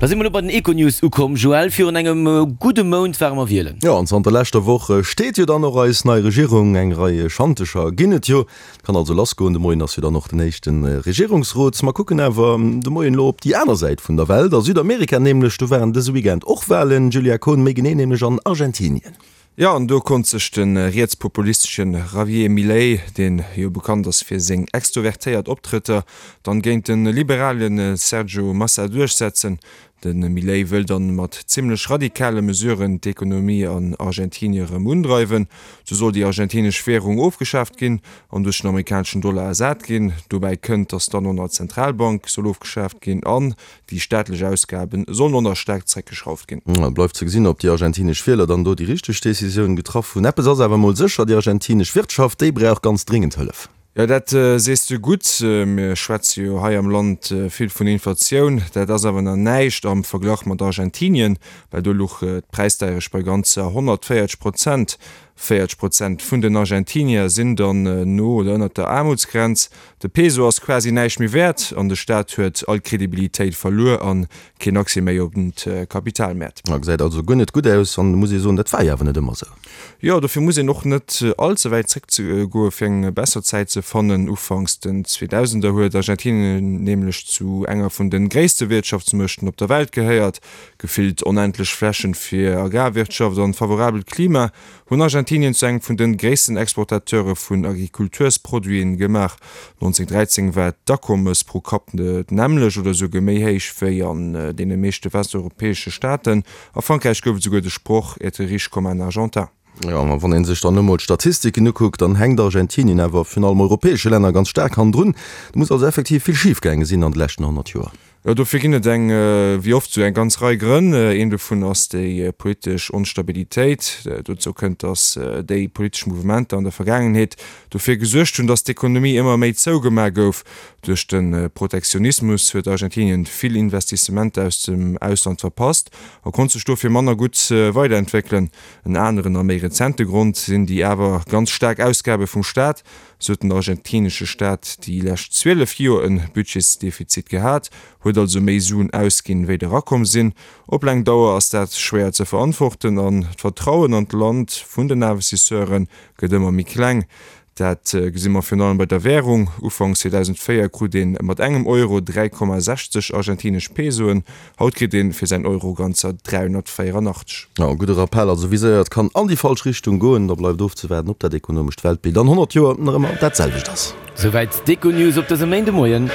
Da si mer elo bei den Econews ukomm. Joël, virun engem gudde Mount ware mer wielen. Jo, an zanter leschter Woch steet jo dann och eis nei Regierung. Eng Rei Schantecher ginn et jo. Et kann also lassgoen. De Moien ass jo dann och den éischte Regierungsrot. Mer kucken awer de Moien elo op déi aner Säit vun der Welt, a Südamerika nämlech. Do waren dëse Weekend och Walen, Julia Kohn, méi genee nämlech an Argentinien. Jo, an do konnt sech de rietspopulistesche Javier Milei, deen jo bekannt ass fir seng extrovertéiert Optrëtter, dann géint de liberale Sergio Massa duerchsetzen. De Milei wëll dann mat zimmlech radikale Mesuren d'Ekonomie an Argentinie erëm undreiwen. Sou soll déi argentinesch Währung ofgeschaaft ginn an duerch den amerikaneschen Dollar ersat ginn. Dobäi kënnt, datt dann och nach d'Zentralbank soll ofgeschaaft ginn an Déi staatlech Ausgabe sollen och nach staark zeréckgeschrauft ginn. Bleift ze gesinn, ob déi argentinesch Wieler dann do déi richteg Decisioun getraff hunn. Eppes ass awer emol sécher, déi argentinesch Wirtschaft, déi brauch ganz dringend Hëllef. Jo, dat sees de gutt. Mir schwätze jo hei am Land vill vun Inflatioun. Dat ass awer nach näischt am Verglach mat Argentinien, well do luch d'Präisdeierecht bei ganzer 140 Prozent. 40 Prozent vun den Argentinier sinn dann no oder ënnert der Aarmutsgrenz. De Peso ass quasi näischt méi wäert an de Staat huet all Kredibilitéit verluer a keen Accès méi op d'Kapitalmäert. Gesäit also guer net gutt aus an muss ee soen, dat war jo awer net ëmmer esou. Jo, dofir muss een och net all ze wäit zréckgoe fir eng besser Zäit ze fannen. Ufanks den Zweedausender huet Argentinien nämlech zu enger vun de gréisste Wirtschaftsmuechten op der Welt gehéiert. Gefillt onendlech Flächen fir Agrarwirtschaft an favorabelt Klima hunn Argentinien zu engem vun den gréissten Exportateure vun Agrikultursproduiten gemaach. 1913 war d'Akommes pro Kapp d'nämmlecht oder esouguer méi héich wéi an deene meeschte westeuropäesche Staaten. A Frankräich gouf et esouguer de Sproch être riche comme un Argentin. Jo, ma wann ee sech dann emol d'Statistiken ukuckt, dann hänkt Argentinien awer virun allem europäesche Länner ganz staark hannendrun. Do muss also effektiv vill schif gaange sinn an de leschten 100 Joer. Jo, dofir ginn et eng, wéi oft, esou eng ganz Rei Grënn. Een dovun ass déi politesch Onstabilitéit. Dozou kënnt, datt déi politesch Mouvementer an der Vergaangenheet dofir gesuergt hunn, datt d'Ekonomie ëmmer méi zougemaach gouf. Duerch de Protektionismus huet Argentinien vill Investissementer aus dem Ausland verpasst a konnt sech dofir manner gutt weiderentwéckelen. En aneren a méi rezente Grond sinn déi awer ganz staark Ausgabe vum Staat. Sou huet den argentinesche Staat déi lescht 12 Joer en Budgetsdefizit gehat, huet also méi Suen ausginn, wéi der erakomm sinn. Op laang Dauer ass dat schwéier ze verantworten an d'Vertrauen an d'Land vun den Investisseure gëtt ëmmer méi kleng. Dat gesi mer virun allem bei der Wärung. Ufanks 2004 krut ee mat engem Euro 3,60 argentinesch Pesoen, Haut kritt een fir säin Euro ganzer 384. Jo, e gudde Rappell also, wéi séier et kann an déi falsch Richtung goen. Da bleift ofzewaarden, ob dat ekonomescht Weltbild an 100 Joer nach ëmmer dat selwecht ass. Souwäit d'Econews op dësem Méindemoien.